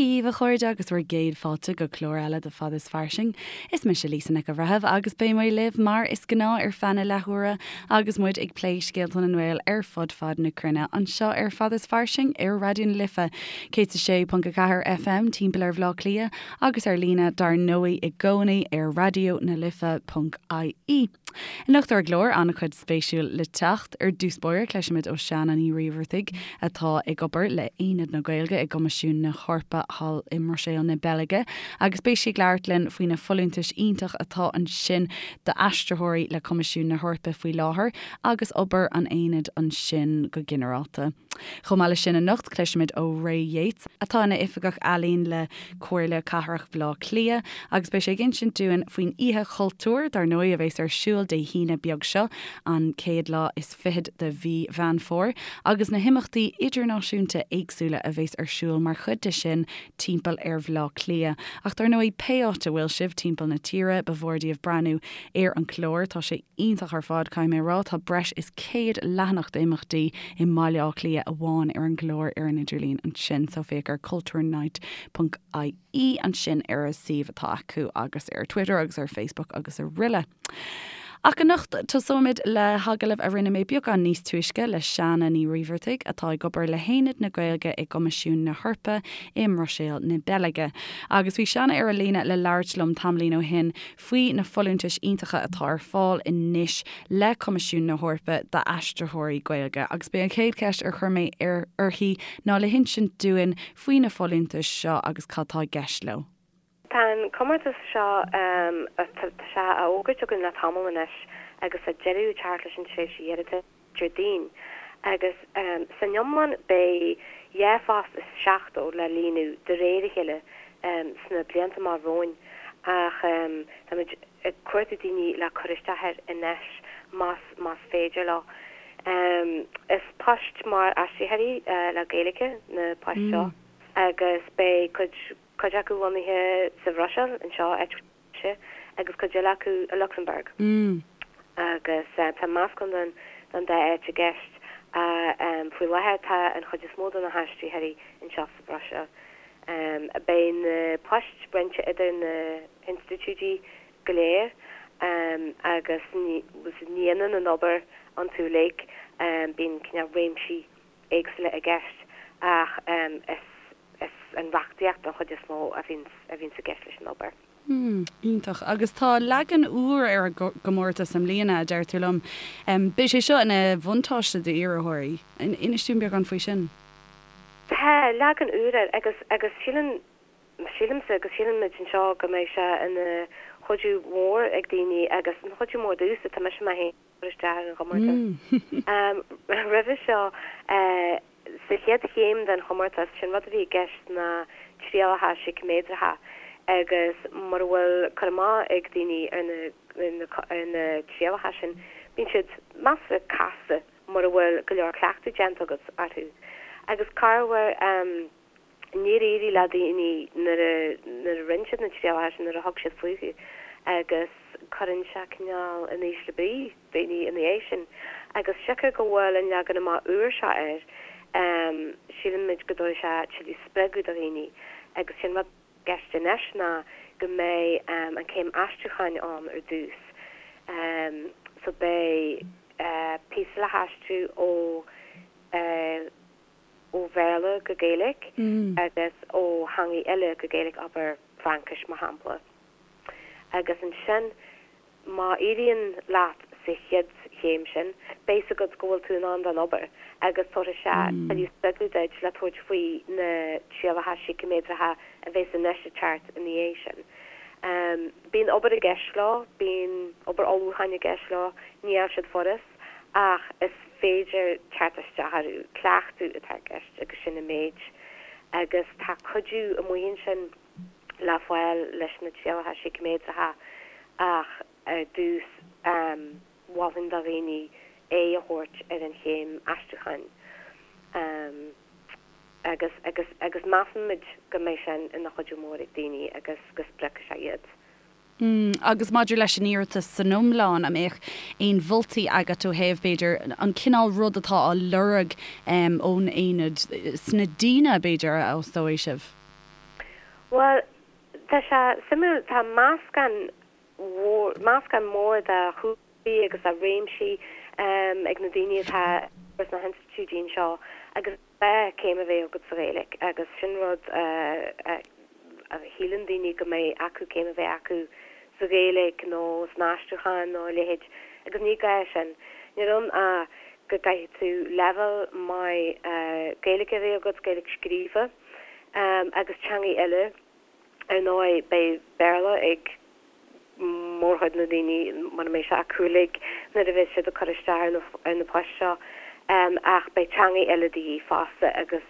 Dia dhaoibh a chairde agus bhur gcéad fáilte go clár eile de Fad is Fairsing. Is mise Lisa Nic an Bhreithimh agus beidh mé libh mar is gnáth ar feadh na leathuaire agus muid ag plé scéalta na nGael ar fud fad na cruinne anseo ar Fad is Fairsing ar Raidió na Life 106.4 FM timpeall ar Bhaile Átha Cliath agus ar líne dar ndóigh i gcónaí ar raidionalife.ie. Anocht ar an gclár, an-chuid spéisiúil le teacht. Ar dtús báire, cloisfimid ó Sheana Ní Raimheartaigh, atá ag obair le hAonad na Gaeilge i gCoimisiún na hEorpa thall i mBruiséil na Beilge, agus beidh sí ag labhairt linn faoi na folúntais iontach atá ansin d'aistritheoirí le Coimisiún na hEorpa faoi láthair agus obair an Aonaid ansin go ginearálta. Chomh maith leis sin anocht, cloisfimid ó Ray Yeates, atá ina Oifigeach Ealaíon le Comhairle Cathrach Bhaile Átha Cliath agus beidh sé ag insint dúinn faoin Oíche Chultúir, dar ndóigh, a bheas ar siúl Dé hAoine beag seo, an chéad lá is fichead de mhí Mheán Fómhair, agus na himeachtaí idirnáisiúnta éagsúla a bheas ar siúl mar chuid de sin timpeall ar Bhaile Átha Cliath. Ach dar ndóigh, pé áit a bhfuil sibh timpeall na tíre, ba mhór daoibh breathnú ar an chlár, tá sé iontach ar fad, caithfidh mé a rá. Tá breis is 100 leathanach d'imeachtaí i mBaile Átha Cliath amháin ar an gclár ar an idirlíon ansin, so féach ar cultúrnight ponc ie ansin ar an suíomh atá acu agus ar Twitter agus ar Facebook agus araile. Ach anocht, tosóimid le hagallamh a rinne mé beagán níos túisce le Seána Ní Raimheartaigh, atá ag obair le hAonad na Gaeilge i gCoimisiún na hEorpa i mBruiséil na Beilge. Agus bhí Seána ar an líne le labhairt liom tamaillín ó shin faoi na folúntais iontacha atá ar fáil anois le Coimisiún na hEorpa d'aistritheoirí Gaeilge agus b'é an chéad cheist ar chuir mé uirthi ná le hinsint dúinn faoi na folúntais seo agus cad tá i gceist leo. Tá an comórtas seo, tá sé á fhógairt againn le tamall anois agus tá deireadh ag teacht leis an tréimhse iarratais Déardaoin agus san iomlán beidh 2 phost is 70 le líonadh de réir a chéile sna blianta amach romhainn ach táimid ag cuartú daoine le cur isteach air anois más más féidir leo. Is poist mar aistritheoirí le Gaeilge na poist seo agus beidh cuid cuid acu lonnaithe sa Bhruiséil anseo, áit mise, agus cuid eile acu i Lucsamburg. Agus tá meascán den den dá áit i gceist. Faoi láthair tá an chuid is mó de na haistritheoirí anseo sa Bhruiséil. Beidh na poist roinnte idir na hinstitiúidí go léir agus ní hionann an obair iontu uilig, bíonn cineál réimsí éagsúla i gceist ach is is an reachtaíocht an chuid is mó a bhíonns a bhíonns i gceist leis an obair. Hmm, iontach. Agus tá leagan úr ar an gcomórtas i mbliana, a deir tú liom. Beidh sé seo ina bhuntáiste d'iarrthóirí. Inis dúinn beagán faoi sin. Tá leagan úr air agus agus síleann, sílimse agus síleann muid anseo go mbeidh sé ina chuidiú mhór ag daoine agus ina chuidiú mór domhsa, tá mise mé féin ag cur isteach ar an chomórtas. Roimhe seo, Sa chéad chéim den chomórtas, sé'n rud a bhí i gceist ná trialacha síciméadracha agus mura bhfuil cur amach ag daoine ar na ar na trialacha sin, bíonn siad measartha casta mura bhfuil go leor cleachtadh déanta agat orthu. Agus corruair, níor éirigh le daoine nuair a nuair a rinne siad na trialacha sin, nuair a thug siad fúthu agus cuireann sé cineál in ísle brí daoine ina dhiaidh sin. Agus siocair go bhfuil an leagan amach úr seo air, sílimid go dtabharfaidh sé tuilleadh spreagadh do dhaoine. Agus sé'n rud i gceist anois ná go mbeidh an céim aistriúcháin ann ar dtús. So beidh píosa le haistriú ó ó Bhéarla go Gaeilge agus ó theangaidh eile go Gaeilge, abair Fraincis mar shampla. Agus ansin Má éiríonn leat sa chéad chéim sin, beidh 's agat go bhfuil tú in ann don obair agus tabharfaidh sé tuilleadh spreagadh duit le tabhairt faoi na trialacha síciméadracha a bheas anois ag teacht ina dhiaidh sin. Bíonn obair i gceist leo, bíonn obair ullmhúcháin i gceist leo, níl siad furast ach is féidir teacht isteach orthu, cleachtadh atá i gceist agus sin an méid. Agus tá cuidiú amuigh ansin. le fáil leis na trialacha síciméadracha ach ar dtús mholfainn do dhaoine aghaidh a thabhairt ar an chéim aistriúcháin agus agus agus measaimid go mbeidh sin ina chuidiú mór ag daoine agus go spreagfaidh sé iad. Agus maidir leis an iarratas san iomlán, an mbeadh aon mholtaí agat ó thaobh, b'fhéidir, an cineál rud atá á lorg ón aonad sna daoine, b'fhéidir, a fhostóidh sibh? Bhuel, tá sé suimiúil, tá meascán mhór, meascán mór de chúlraí agus de réimsí ag na daoine atá sna hinstitiúidí anseo agus gá céim a bheith agat sa Ghaeilge agus sin rud a shíleann daoine go mbeidh acu céim a bheith acu sa Ghaeilge nó san aistriúchán nó a leithéid agus ní gá sin. Níl ann ach go gcaithfidh tú leibhéal maith Gaeilge a bheith agat, Gaeilge scríofa agus teangaí eile. Ar ndóigh beidh Béarla ag mórchuid na ndaoine, mura mbeidh sé acu uilig, nuair a bheas siad ag cur isteach ar na poist seo, ach beidh teangaí eile de dhíth fosta agus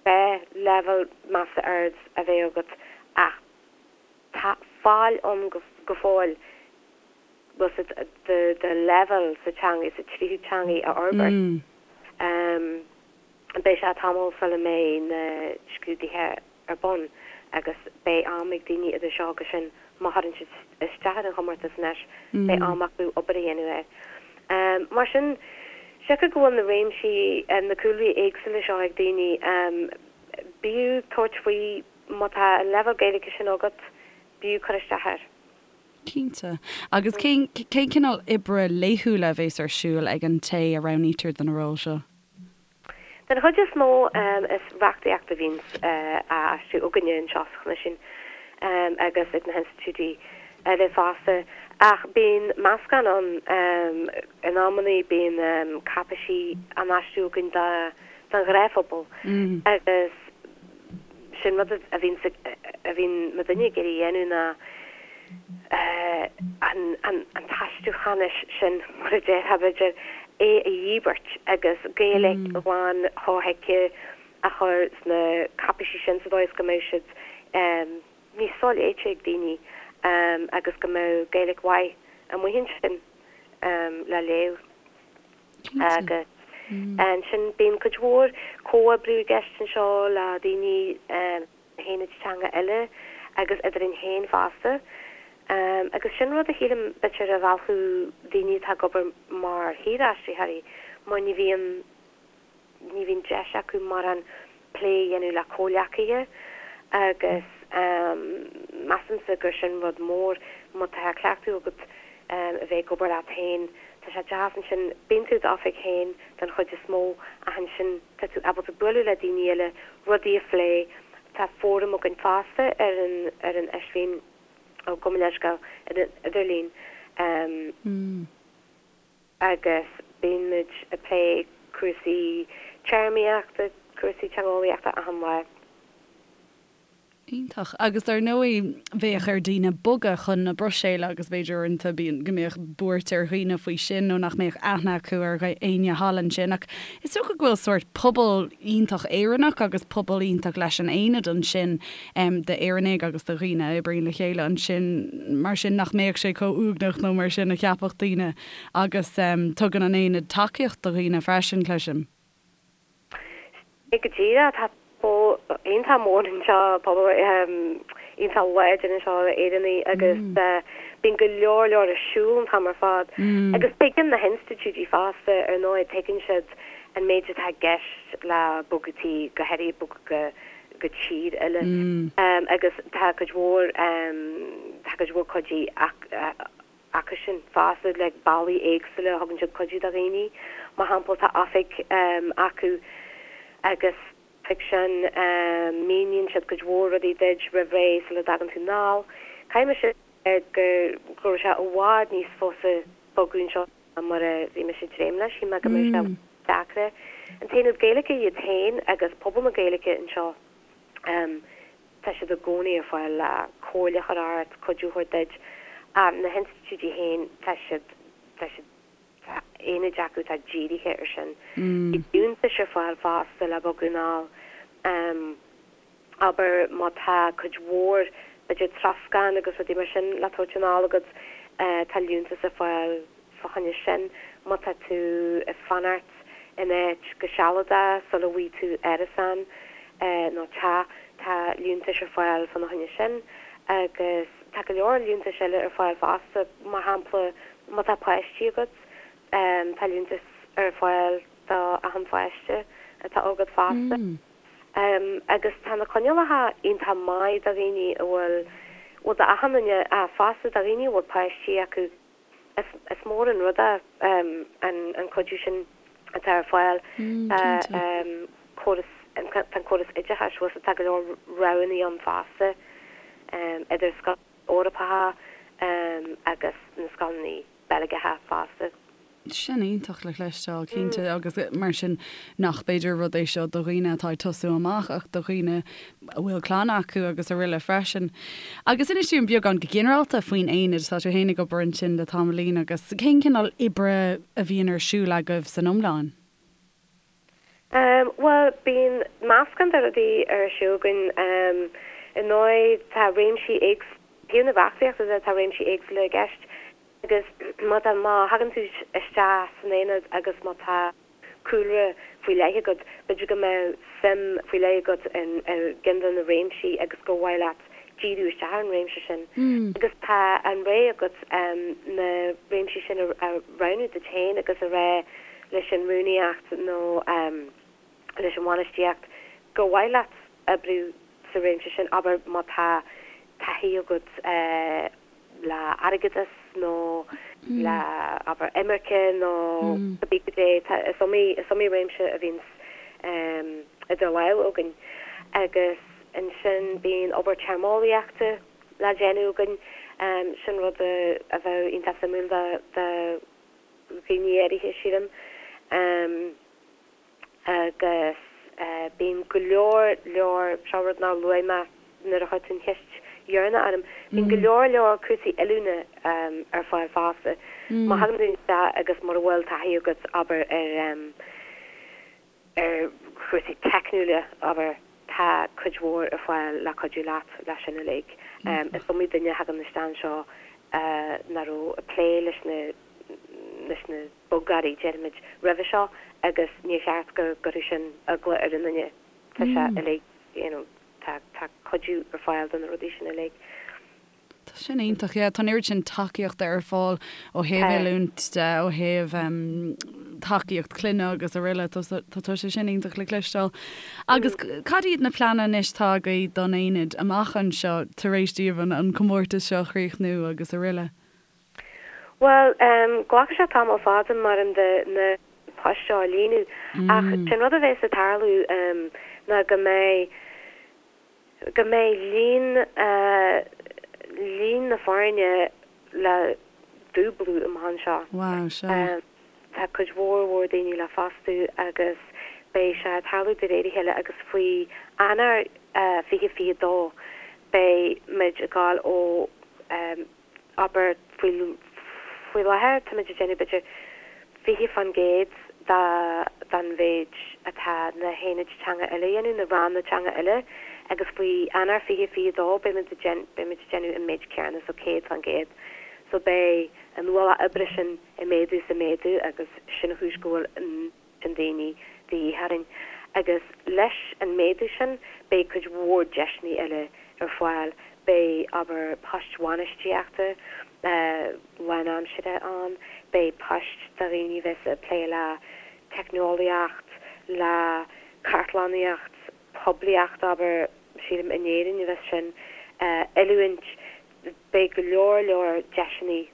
beidh leibhéal measartha ard a bheith agat ach tá fáil ann go fóill bhfuil a fhios agat do leibhéal sa teanga, sa tríú teangaí a fhorbairt. Beidh sé tamall sula mbeidh na scrúduithe ar bun agus beidh am ag daoine idir seo agus sin, má chuireann siad isteach ar an chomórtas anois, beidh am acu obair a dhéanamh air. Mar sin, siocair go bhfuil na réimsí, na cúlraí éagsúla seo ag daoine, b'fhiú tabhairt faoi, má tá an leibhéal Gaeilge sin agat, b'fhiú cur isteach air. Cinnte. Agus cén cineál oibre laethúla a bhéas ar siúl ag an té a roghnaítear do na róil seo? Den chuid is mó is reachtaíocht a bhíonns á aistriú againne anseo sa Choimisiún agus ag na hinstitiúidí eile fosta. Ach bíonn meascán ann. In amannaí bíonn cáipéisí á n-aistriú againn don ghnáthphobal agus sin rud a bhíonn a bhíonn muidinne ag iarraidh a dhéanamh ná an t-aistriúchánais sin, mar a déarfá, b'fhéidir, é a dhíbirt agus Gaeilge ghlan shothuigthe a chur sna cáipéisí sin sa dóigh is go mbeadh siad níos soléite ag daoine agus go mbeadh Gaeilge mhaith amuigh ansin le léamh. Agus ansin bíonn cuid mhór comhoibriú i gceist anseo le daoine haonaid teanga eile agus eadrainn féin fosta. Agus sin rud a shílim b'fhéidir a mheallfadh daoine atá ag obair mar shaoraistritheoirí mar ní bhíonn ní bhíonn deis acu mórán plé a dhéanamh le comhleacaithe agus measaimse gur sin rud mór má tá cleachtadh agat a bheith ag obair leat féin tá sé deas ansin bíonn tú i d'oifig féin den chuid is mó ach ansin tá tú ábalta bualadh le daoine eile, rudaí a phlé. Tá fóram againn fosta ar an ar an idirlíon, ó gabh mo leithscéal, ar an idirlíon agus bíonn muid ag plé cúrsaí téarmaíochta, cúrsaí teangeolaíochta achan lá. Iontach. Agus dar ndóigh, bheadh ar daoine bogadh chun na Bruiséile agus b'fhéidir uaireanta bíonn, go mbeadh buairt ar dhaoine faoi sin nó nach mbeadh aithne acu ar éinne thall ansin. Ach is dócha go bhfuil sórt pobal iontach Éireannach agus pobal iontach leis an Aonad ansin d'Éireannaigh agus do dhaoine a oibríonn le chéile ansin mar sin nach mbeadh sé chomh uaigneach nó mar sin a cheapfadh daoine agus tugann an Aonad tacaíocht do dhaoine freisin, cloisim. Sea go díreach, tá pobal iontach mór anseo, pobal iontach láidir anseo d'Éireannaigh agus bíonn go leor leor ar siúl an t-am ar fad. Agus tuigeann na hinstitiúidí fosta, ar ndóigh, tuigeann siad an méid atá i gceist le bogadh tí, go háirithe bogadh go tír eile. Agus tá cuid mhór, tá cuid mhór cuidiú acusan fosta le bealaí éagsúla a thugann siad cuidiú do dhaoine. Mar shampla, tá oifig acu agus san oifig sin míníonn siad cuid mhór rudaí duit roimh ré sula dtagann tú anall. Caithfidh mise a rá go raibh sé i bhfad níos fusa bogadh anseo ná mar a bhí mise ag dréim leis. Shíl mé go mbeadh sé deacra. An tAonad Gaeilge iad féin agus pobal na Gaeilge anseo. Tá siad i gcónaí ar fáil le comhairle a chur ort, cuidiú a thabhairt duit. Na hinstitiúidí féin, tá siad, tá siad, tá aonaid acu atá dírithe ar sin. Bíonn liúntais ar fáil fosta le bogadh anall. Abair má tá cuid mhór, b'fhéidir troscán agus rudaí mar sin le tabhairt anall agat, tá liúntas ar fáil fá choinne sin. Má tá tú ag fanacht in áit go sealadach sula bhfaighidh tú árasán nó teach, tá liúntais ar fáil fána choinne sin. Agus tá go leor liúntais eile ar fáil fosta, mar shampla má tá páistí agat, tá liúntas ar fáil do achan pháiste atá agat fosta. Agus tá na coinníollacha iontach maith do dhaoine a bhfuil, bhuel d'achan duine ach fosta do dhaoine a bhfuil páistí acu. Is mór an rud é an cuidiú sin atá ar fáil. Tá córas, tá an córas oideachais, bhuel tá go leor roghanna ann fosta idir scoileanna Eorpacha agus na scoileanna Beilgeacha fosta. Sin iontach le cloisteáil, cinnte, agus mar sin nach b'fhéidir rud é seo do dhaoine atá ag tosú amach ach do dhaoine a bhfuil clann acu agus araile freisin. Agus inis dúinn beagán go ginearálta faoin aonad, tá tú féin ag obair ansin le tamaillín agus cén cineál oibre a bhíonn ar siúl agaibh san iomlán? Bhuel, bíonn meascán de rudaí ar siúl againn. Ar ndóigh, tá réimsí éagsúla, taobh na reachtaíochta de, tá réimsí éagsúla i gceist. Agus má tá, má thagann tú isteach san aonad agus má tá cúlra faoi leith agat, b'fhéidir go mbeadh suim faoi leith agat in i gceann de na réimsí agus gur mhaith leat díriú isteach ar an réimse sin. Agus tá an rogha agat na réimsí sin a roghnú duit féin agus a rá leis an rúnaíocht nó leis an bhainistíocht gur mhaith leat oibriú sa réimse sin, abair má tá taithí agat le airgeadas nó le, abair, imirce nó cibé cad é, tá, is iomaí, is iomaí réimse a bhíonns idir lámha againn. Agus ansin bíonn obair téarmeolaíochta le déanamh againn, sin rud a bheadh iontach suimiúil do dhaoine áirithe, sílim. Agus bíonn go leor leor, seo rud nár luaigh mé nuair a chuir tú an cheist dheireanach orm, bíonn go leor leor cúrsaí oiliúna ar fáil fosta. Má thagann tú isteach agus mura bhfuil taithí agat, abair, ar ar chúrsaí teicniúla, abair, tá cuid mhór ar fáil le cuidiú leat leis sin uilig. Is iomaí duine a thagann isteach anseo nach raibh ag plé leis na leis na bogearraí, déarfaimid, roimhe seo agus níor cheart go gcuirfeadh sin eagla ar an duine. Tá sé uilig, you know, tá, tá cuidiú ar fáil do na rudaí sin uilig. Tá sin iontach, yeah. Tá an oiread sin tacaíochta ar fáil ó thaobh oiliúint de, ó thaobh tacaíocht clainne agus araile. Tá, tá sé sin iontach le cloisteáil. Agus cad iad na pleananna anois atá agaibh don aonad amach anseo tar éis daoibh an, an comórtas seo a chríochnú agus araile? Bhuel, glacfaidh sé tamall fada maram de na poist seo a líonadh ach sé'n rud a bheas ag tarlú ná go mbeidh, go mbeidh líon, líon na foirne le dúblú amach anseo. Wow, sea. Tá cuid mhór mhór daoine le fostú agus beidh sé ag tarlú de réir a chéile agus faoi Eanáir 2022 beidh muid ag gabháil ó abair, faoi, faoi láthair táimid ag déanamh b'fhéidir 20% de, den mhéid atá na haonaid teanga eile a dhéanamh, na ranna teanga eile, agus faoi Eanáir 2022 beimid ag déan, beimid ag déanamh an méid céanna, so 100%. So beidh an ualach oibre sin ag méadú is ag méadú agus sin an chúis go bhfuil an. sin daoine de dhíth orainn. Agus leis an méadú sin beidh cuid mhór deiseanna eile ar fáil, beidh, abair, poist bhainistíochta lánaimseartha ann, beidh poist do dhaoine a bheas ag plé le teicneolaíocht, le cartlannaíocht, poiblíocht, abair, sílim in Éirinn a bheas sin, oiliúint, beidh go leor leor deiseanna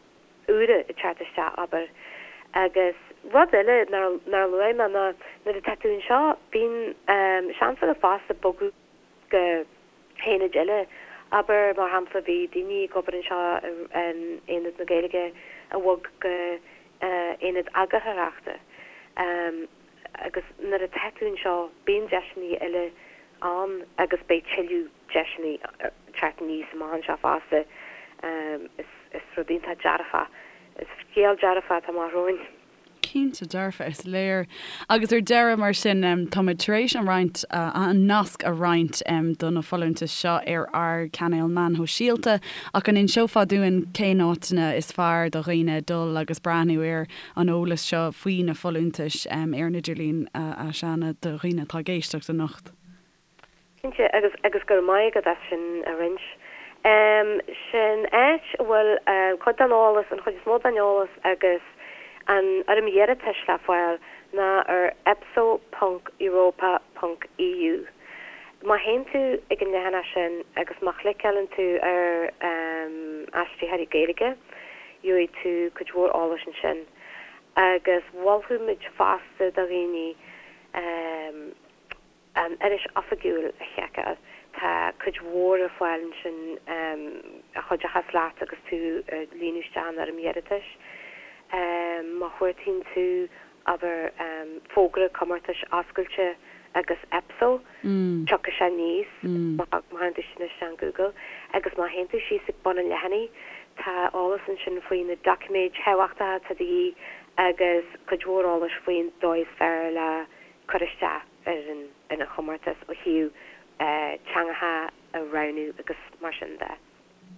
úra ag teacht isteach, abair. Agus rud eile nár, nár luaigh mé ná nuair atá tú anseo, bíonn seans agat fosta bogadh go haonaid eile. Abair, mar shampla, bhí daoine ag obair anseo in Aonad na Gaeilge a bhog go hAonad Eagarthóireachta. Agus nuair atá tú anseo, bíonn deiseanna eile ann agus beidh tuilleadh deiseanna ag teacht aníos amach anseo fosta. Is rud iontach dearfach, is scéal dearfach atá amach romhainn. Cinnte dearfa, is léir. Agus ar deireadh, mar sin, táimid tar éis an roinnt, an nasc a roinnt do na folúntais seo ar ár gcainéil meán shóisialta, ach an inseofá dúinn cén áiteanna is fearr do dhaoine dul agus breathnú ar an eolas seo faoi na folúntais ar an idirlíon, a Shauna, do dhaoine atá ag éisteacht anocht? Cinnte, agus agus go raibh maith agat as sin a roinnt. Sin áit a bhfuil cuid den eolas, an chuid is mó den eolas agus an fhoirm iarratais le fáil ná ar epso ponc europa ponc eu. Má théann tú ag an leathanach sin agus má chliceálann tú ar Aistritheoirí Gaeilge, gheobhaidh tú cuid mhór eolais ansin. Agus mholfadh muid fosta do dhaoine an iris oifigiúil a sheiceáil. Tá cuid mhór ar fáil ansin a chuideochas leat agus tú ag líonadh isteach an fhoirm iarratais. Má chuartaíonn tú abair, fógra comórtais oscailte agus EPSO, tiocfaidh sé aníos má chuireann tú sin isteach in Google. Agus má théann tú síos ag bun an leathanaigh, tá eolas ansin faoi na doiciméid thábhachtacha atá de dhíth agus cuid mhór eolais faoin dóigh is fearr le cur isteach ar an chomórtas ó thaobh teangacha a roghnú agus mar sin de.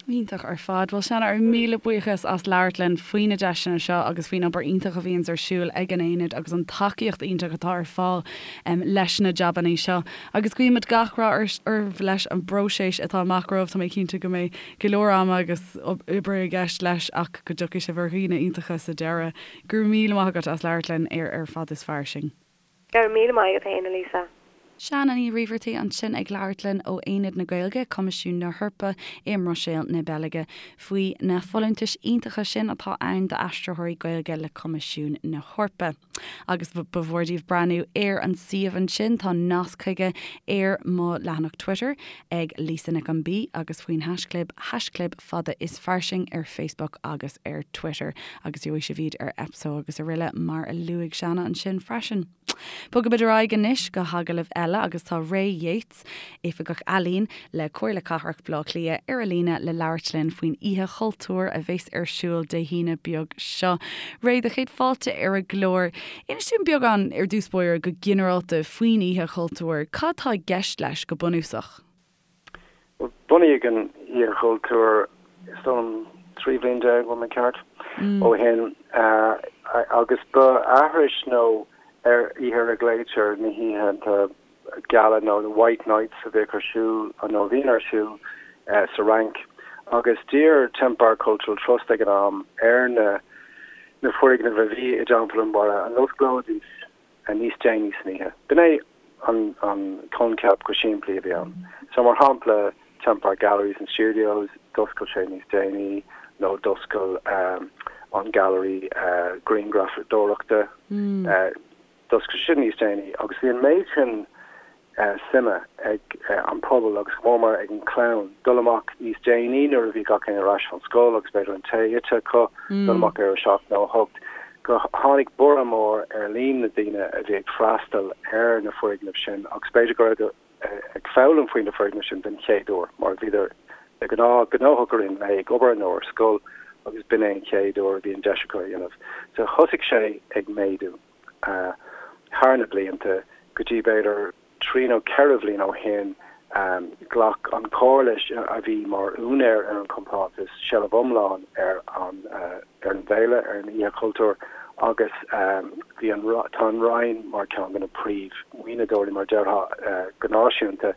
Iontach ar fad. Bhuel, Seanna, ár míle buíochas as labhairt linn faoi na deiseanna seo agus faoin obair iontach a bhíonns ar siúl ag an Aonad agus an tacaíocht iontach atá ar fáil leis na jabannaí seo. Agus guímid gach rath oraibh leis an bpróiseas atá amach romhaibh. Tá mé cinnte go mbeidh go leor ama agus oibre i gceist leis ach go dtiocfaidh sibh ar dhaoine iontacha sa deireadh. Go raibh míle maith agat as labhairt linn ar Ar Fad is Fairsing. Go raibh míle maith agat féin, a Lisa. Seanna Ní Raimheartaigh ansin ag labhairt linn ó Aonad na Gaeilge, Coimisiún na hEorpa i mBruiséil na Beilge, faoi na folúntais iontacha sin atá ann d'aistritheoirí Gaeilge le Coimisiún na hEorpa. Agus ba mhór daoibh breathnú ar an suíomh ansin, tá nasc chuige ar mo leathanach Twitter ag Lisa Nic an B agus faoin haischlib, haischlib fada is fairsing ar Facebook agus ar Twitter agus gheobhaidh sibh iad ar EPSO agus aroile mar a luaigh Seanna ansin freisin. Bogaimid ar aghaidh anois go hagallamh eile agus tá Ray Yeates, Oifigeach Ealaíon le Comhairle Cathrach Bhaile Átha Cliath ar an líne le labhairt linn faoin Oíche Chultúir a bheas ar siúl Dé hAoine beag seo. Ray, do chéad fáilte ar an gclár. Inis dúinn beagán ar dtús báire go ginearálta faoin Oíche Chultúir. Cad tá i gceist leis go bunúsach? Bunaíodh an Oíche Chultúir, is dóigh liom, 13 bhliain, an bhfuil mé ceart, ó shin agus ba aithris nó ar oíche ar a nglaoitear na hoícheanta geala nó the White Nights a bhíodh ar siúl nó a bhíonn ar siúl sa Fhrainc agus d'iarr Temple Bar Cultural Trust ag an am ar na na foirgnimh a bhí i dTeampall an Bhaile an osclóidís níos déanaí san oíche. B'in é an coincheap go simplí a bhí ann. So mar shampla Temple Bar Galleries and Studios, d'oscail sé níos déanaí nó d'oscail an Gallery Grianghrafadóireachta, d'oscail sin níos déanaí agus bhí an méid sin suime ag an pobal agus go mór mór ag an chlann dul amach níos déanaí nuair a bhí gach éinne ar ais ón scoil agus b'fhéidir an tae ite acu, dul amach ar a seacht nó a hocht, go tháinig borradh mór ar líon na daoine a bhí ag freastal ar na foirgnimh sin agus b'fhéidir go raibh ag foghlaim faoi na foirgnimh sin den chéad uair mar bhíodar de ghnáth gnóthach i rith an lae ag obair nó ar scoil agus b'in é an chéad uair a bhí an deis acu a dhéanamh. So thosaigh sé ag méadú. Thar na blianta, go dtí b'fhéidir trí nó ceithre bhliain ó shin, ghlac an Chomhairle, a bhí mar úinéir ar an chompántas, seilbh iomlán ar an ar an bhféile, ar an Oíche Chultúir, agus bhí an tá an Roinn mar cheann de na príomh-mhaoinitheoirí, mar déarfá, go náisiúnta.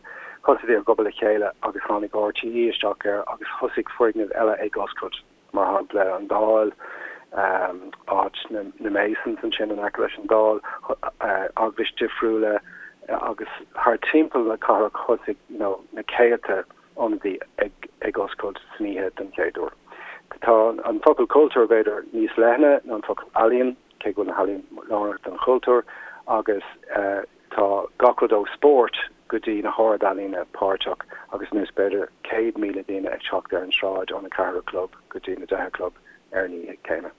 Thosaigh ag obair le chéile agus tháinig RTÉ isteach air agus thosaigh foirgnimh eile ag oscailt. mar shampla an Dáil, áit na Masons ansin in aice leis an Dáil, eaglais difriúla agus thar timpeall na cathrach thosaigh you know na céadta ionadaí ag ag oscailt san oíche den chéad uair. Tá an focal cultúr b'fhéidir níos leithne ná an focal ealaíon, cé go bhfuil na healaíon lárnach don chultúr agus Tá gach rud ó spórt go dtí na hard-ealaíona páirteach agus anois b'fhéidir 100,000 daoine ag teacht ar an sráid óna ceathair a chlog go dtí na deich a chlog ar an oíche chéanna.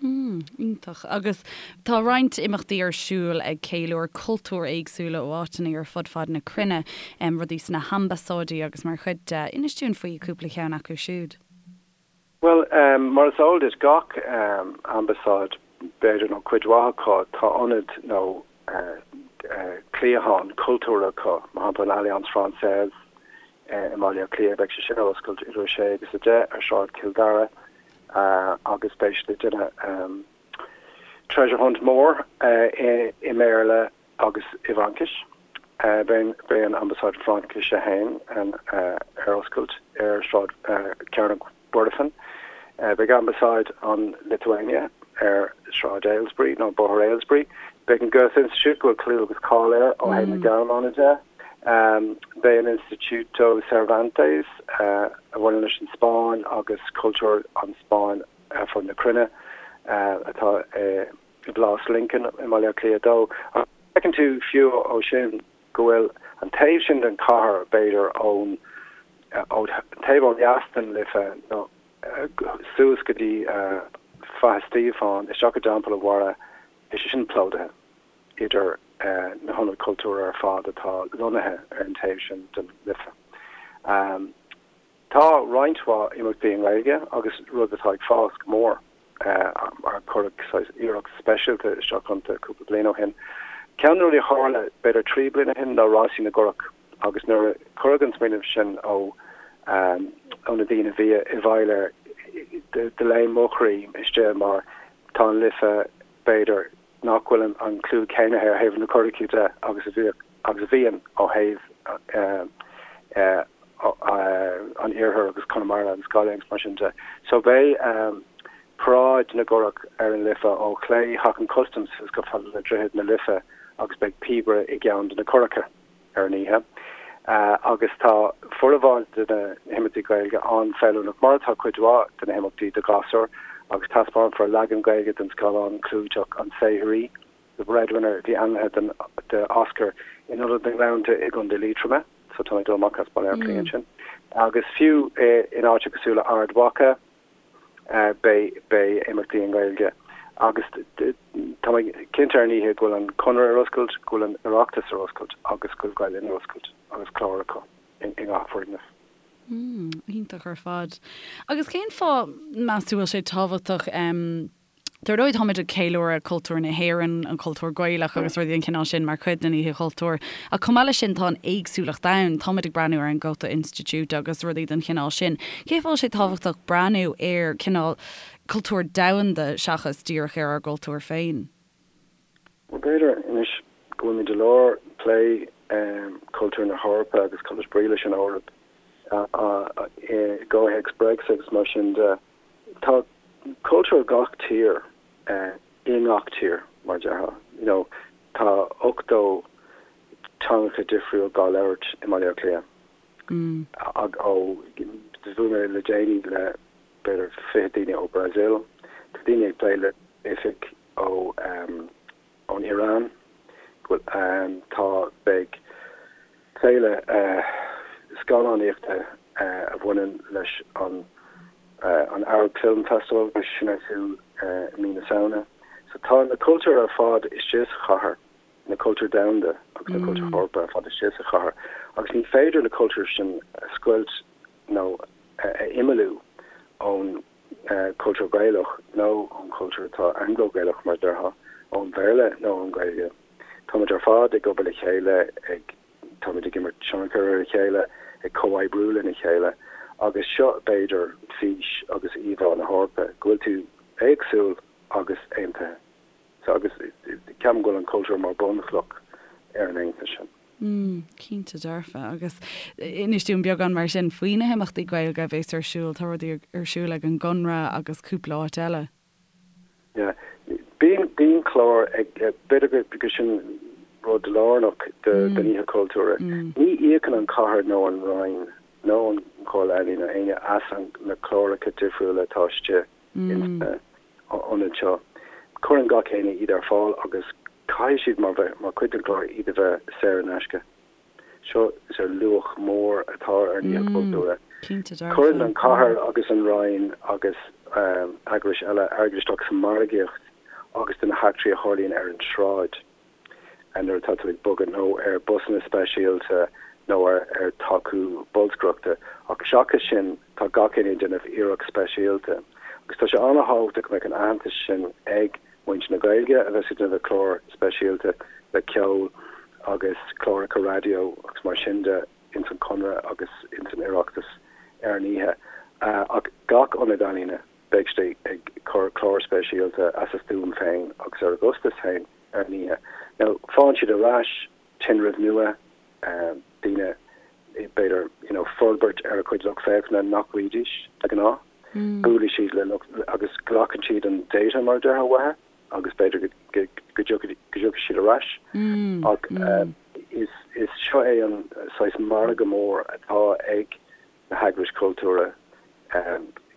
Mm, iontach. Agus tá roinnt imeachtaí ar siúl ag ceiliúradh cultúir éagsúla ó áiteanna ar fud fad na cruinne, rudaí sna hambasáidí agus mar chuid de. Inis dúinn faoi cúpla cheann acu siúd. Bhuel, mar is eol duit, gach ambasáid, b'fhéidir, nó cuid mhaith acu, tá ionad nó cliathán cultúrtha acu, mar shampla an Alliance Française i mBaile Átha Cliath, beidh sé sin ar oscailt idir 6 agus 10 ar Shráid Chill Dara agus beidh siad ag déanamh treasure hunt mór i mBéarla agus i bhFraincis. Beidh an Ambasáid Fraincise féin ar oscailt ar Shráid Chearnóg Mhuirfean. Beidh Ambasáid an Lithuania ar Shráid Ailesbury nó Bóthar Ailesbury. Beidh an Goethe Institut, go bhfuil clú agus cáil air ó thaobh na Gearmáine de. Beidh an Instituto Cervantes, a bhaineann leis an Spáinn agus cultúr an Spáinn ar fud na cruinne, atá i bPlás Lincoln i mBaile Átha Cliath 2. Ach feiceann tú fiú ó sin go bhfuil an taobh sin den chathair, b'fhéidir ón taobh ó dheas den Life nó suas go dtí Faiche Stíofáin, isteach i dTeampall an Bharra, tá sé sin plódaithe idir na hionaid chultúir ar fad atá lonnaithe ar an taobh sin den Life. Tá roinnt mhaith imeachtaí i nGaeilge agus rud atá ag fás go mór mar cuireadh saghas iarracht speisialta isteach iontu cúpla bliain ó shin. Ceann de na rudaí a tharla b'fhéidir 3 bliana ó shin ná Rásaí na gCurach agus nuair a cuireadh an smaoineamh sin ó ó na daoine a bhí i bhfeighil air do léim mo chroí istigh mar tá an Life b'fhéidir nach bhfuil an clú céanna air ó thaobh na curachaí de agus a bhíodh agus a bhíonn ó thaobh an iarthair agus Conamara agus Gaillimh agus mar sin de. So beidh paráid na gcurach ar an Life ó chlé Theach an Chustaim suas go fada le Droichead na Life agus beidh píobaire i gceann de na curacha. ar an oíche agus tá formhór de na himeachtaí Gaeilge an-fheiliúnach, mar atá cuid mhaith de na himeachtaí do ghasúir, agus taispeánfar leagan Gaeilge den scannán clúiteach An Saothraí, The Breadwinner, a bhí ainmnithe do Oscar in Ionad na nGleannta i gContae Liatroma, so tá mé ag dul amach as Baile Átha Cliath ansin, agus fiú in áiteacha cosúil le Ard Mhacha. Beidh imeachtaí i nGaeilge agus tá mé cinnte ar an oíche go bhfuil an Conradh ar oscailt, go bhfuil an Oireachtas ar oscailt agus go bhfuil Gael Linn ar oscailt agus clár acu i ngach foirgneamh. Iontach ar fad. Agus cén fáth, meas tú, bhfuil sé tábhachtach Dar ndóigh, táimid ag ceiliúradh cultúr na hÉireann, an cultúr Gaelach agus rudaí den chineál sin mar chuid den Oíche Chultúir. Ach chomh maith leis sin, tá an éagsúlacht ann. Táimid ag breathnú ar an Goethe Institute agus rudaí den chineál sin. Cén fáth a bhfuil sé tábhachtach breathnú ar cineál cultúr domhanda seachas díreach ar ár gcultúr féin? Bhuel, b'fhéidir anois go bhfuilimid i lár plé cultúr na hEorpa agus cad is brí leis an Eoraip i gcomhthéacs Brexit agus mar sin de. Tá cultúr gach tír i ngach tír, mar a déarfá. You know, tá 80 teangacha difriúil dhá labhairt i mBaile Átha Cliath. Ó, bhuail mé le déanaí le b'fhéidir 20 daoine ó Brazil. Tá daoine ag plé le oifig ó ón Iaráin, go bhfuil, tá, beidh féile scannánaíochta a bhaineann leis an an Arab Film Festival, beidh sin ar siúl i mí na Samhna. So tá na cultúir ar fad istigh sa chathair, na cultúir domhanda agus na cultúir Eorpacha ar fad istigh sa chathair agus ní féidir na cultúir sin a scoilt nó a imeallú ón cultúr Gaelach nó ón chultúr atá Anglo-Gaelach mar a déarfá, ón Bhéarla nó ón Ghaeilge. Táimid ar fad ag obair le chéile, ag, táimid ag imirt tionchar ar a chéile, ag comhoibriú lena chéile agus seo b'fhéidir fís agus íomhá na hEorpa, go bhfuil tú éagsúil agus aontaithe. So agus ceapaim go bhfuil an cultúr mar bunchloch ar an aontas sin. Mm, cinnte dearfa. Agus inis dúinn beagán mar sin faoi na himeachtaí Gaeilge a bhéas ar siúl. Tá rudaí ar siúl ag an gConradh agus cúpla áit eile. Yeah. Bíonn, bíonn clár ag, b'fhéidir go, go sin rud lárnach de, den Oíche Chultúir. Ní íocann an chathair nó an Roinn nó an Chomhairle Ealaíon nó éinne as an, na cláracha difriúla atá istigh ins na ionaid seo. Cuireann gach éinne iad ar fáil agus caithfidh siad mar bheith mar chuid den chlár iad a bheith saor in aisce. Seo is ar luach mór atá ar an Oíche Chultúir. Cuireann an chathair agus an Roinn agus eagrais eile airgead isteach sa mhargaíocht agus do na heachtraí a tharlaíonn ar an tsráid. nuair atá tú ag bogadh nó ar busanna speisialta nó ar tacú bolscaireachta ach seachas sin tá gach éinne ag déanamh iarracht speisialta agus tá sé an-thábhachtach go mbeadh an aitheantas sin ag muintir na Gaeilge a bheas ag déanamh clár speisialta le ceol agus cláracha raidió agus mar sin de ins an Chonradh agus ins an Oireachtas ar an oíche ach gach ionad ealaíne beidh siad ag cur clár speisialta as a stuaim féin agus ar a gcostas féin ar an oíche. Now, faigheann siad ar ais tinreamh nua, daoine, b'fhéidir, you know, forbairt ar a chuid lucht féachana nach bhfaighidís de ghnáth. Buailfidh siad le lucht, agus glacann siad an data, mar a déarfá, uathu agus b'fhéidir go, go, go dtiocfaidh, go dtiocfaidh siad ar ais. Ach is, is seo é an. saghas margadh mór atá ag na heagrais chultúrtha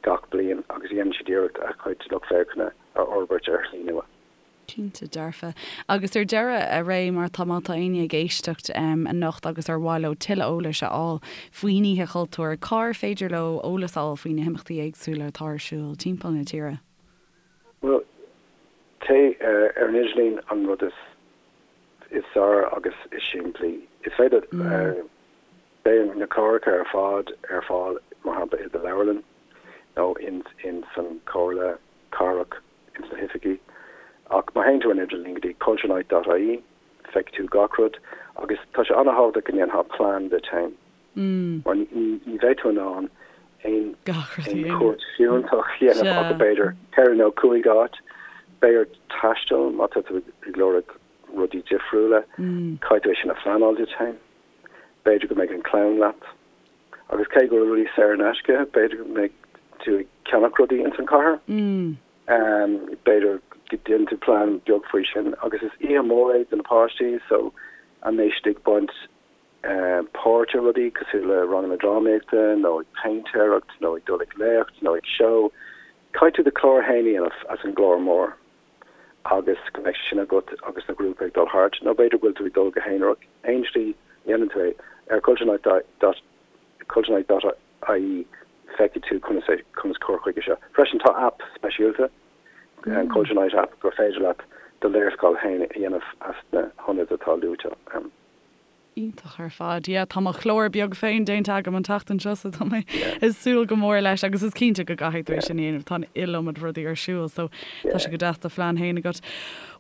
gach bliain agus dhéanann siad iarracht a chuid lucht féachana a fhorbairt ar shlí nua. Cinnte dearfa. Agus ar deireadh, a Ray, mar tá, má tá éinne ag éisteacht anocht agus ar mhaith leo tuilleadh eolais a fháil faoin Oíche Chultúir, cár féidir leo eolas a fháil faoi na himeachtaí éagsúla atá ar siúl timpeall na tíre? Bhuel, téigh ar an idirlíon an rud is is fearr agus is simplí. Is féidir, beidh na cláracha ar fad ar fáil, mar shampla, i do leabharlann nó in san Chomhairle Cathrach, ins na hoifigí. Ach má théann tú ar an idirlíon go dtí culturenight dot ie, feicfidh tú gach rud agus tá sé an-thábhachtach go ndéanfá plean duit féin mar ní bheidh tú in ann aon chuairt fiúntach a dhéanamh ach b'fhéidir ceithre nó cúig áit. Beidh ort taisteal má tá tú ag lorg rudaí difriúla, caithfidh tú é sin a phleanáil duit féin. B'fhéidir go mbeidh an chlann leat. Agus cé go bhfuil rudaí saor in aisce, b'fhéidir go mbeidh tú ag ceannach rudaí ins an chathair. B'fhéidir go ndéanann tú plean beag faoi sin. Agus is oíche mhór é do na páistí so an mbeidh siad ag baint páirt i rudaí cosúil le ranganna drámaíochta nó ag péintéireacht nó ag dul ag léacht nó ag seó. Caithfidh tú do chlár féin a dhéanamh as an gclár mór agus go mbeidh sé sin agat agus na grúpaí ag dul thart, nó b'fhéidir go bhfuil tú ag dul go haonarach, aon slí a dhéanann tú é, ar culturenight dot culturenight dot ie feicfidh tú conas é conas cur chuige seo. Freisin tá aip speisialta, an Culture Night app, gur féidir leat do léarscáil féin a dhéanamh as na hionaid atá luaite ann. Iontach ar fad. Yeah, tá mo chlár beag féin déanta agam an tseachtain seo so tá mé ag súil go mór leis agus is cinnte go gcaithfidh tú é sin a dhéanamh, tá an iliomad rudaí ar siúl so tá sé go deas do phlean féin agat.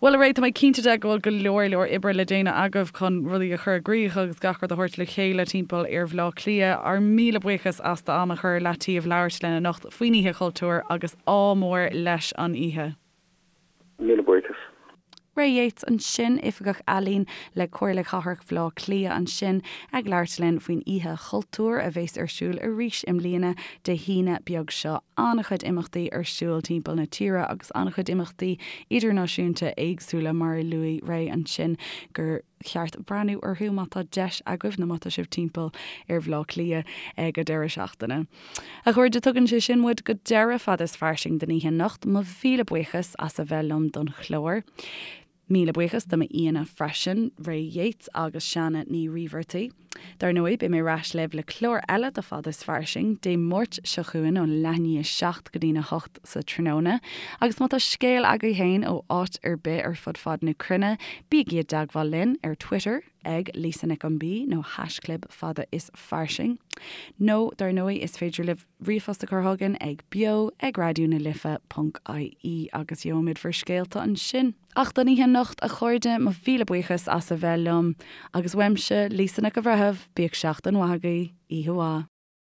Bhuel a Ray, tá mé cinnte de go bhfuil go leor leor oibre le déanamh agaibh chun rudaí a chur i gcrích agus gach rud a thabhairt le chéile timpeall ar Bhleá Cliath. Ár míle buíochas as d'am a chur ar leataobh labhairt linn anocht faoin Oíche Chultúir agus ádh mór leis an oíche. Míle buíochas. Ray Yeates ansin, Oifigeach Ealaíon le Comhairle Cathrach Bhaile Átha Cliath ansin ag labhairt linn faoin Oíche Chultúir a bheas ar siúl arís i mbliana Dé hAoine beag seo. An-chuid imeachtaí ar siúl timpeall na tíre agus an-chuid imeachtaí idirnáisiúnta éagsúla mar a luaigh Ray ansin gur cheart breathnú orthu má tá deis agaibh nó má tá sibh timpeall ar Bhaile Átha Cliath ag an deireadh seachtaine. A chairde, tugann sé sin muid go deireadh Fada is Fairsing don oíche anocht. Mo mhíle buíochas as a bheith liom don chlár. Míle buíochas do m'aíonna freisin, Ray Yeates agus Seana Ní Ríbheartaigh. Dar ndóigh, beidh mé ar ais libh le clár eile de Fada is Fairsing, Dé Máirt seo chugainn ón leath i ndiaidh 7 go dtína 8 sa tráthnóna. Agus má tá scéal agaibh féin ó áit ar bith ar fud fad na cruinne, bígí i dteagmháil linn ar Twitter ag Lisa Nic an B nó haischlib Fada is Fairsing. Nó, dar ndóigh, is féidir libh ríomhphost a chur chugainn ag beo ag raidió na life ponc ie agus gheobhaimid bhur scéalta ansin. Ach don oíche anocht, a chairde, mo mhíle buíochas as a bheith liom. Agus uaimse, Lisa Nic an Bhreithimh, bíodh seachtain mhaith agaibh. Oíche mhaith.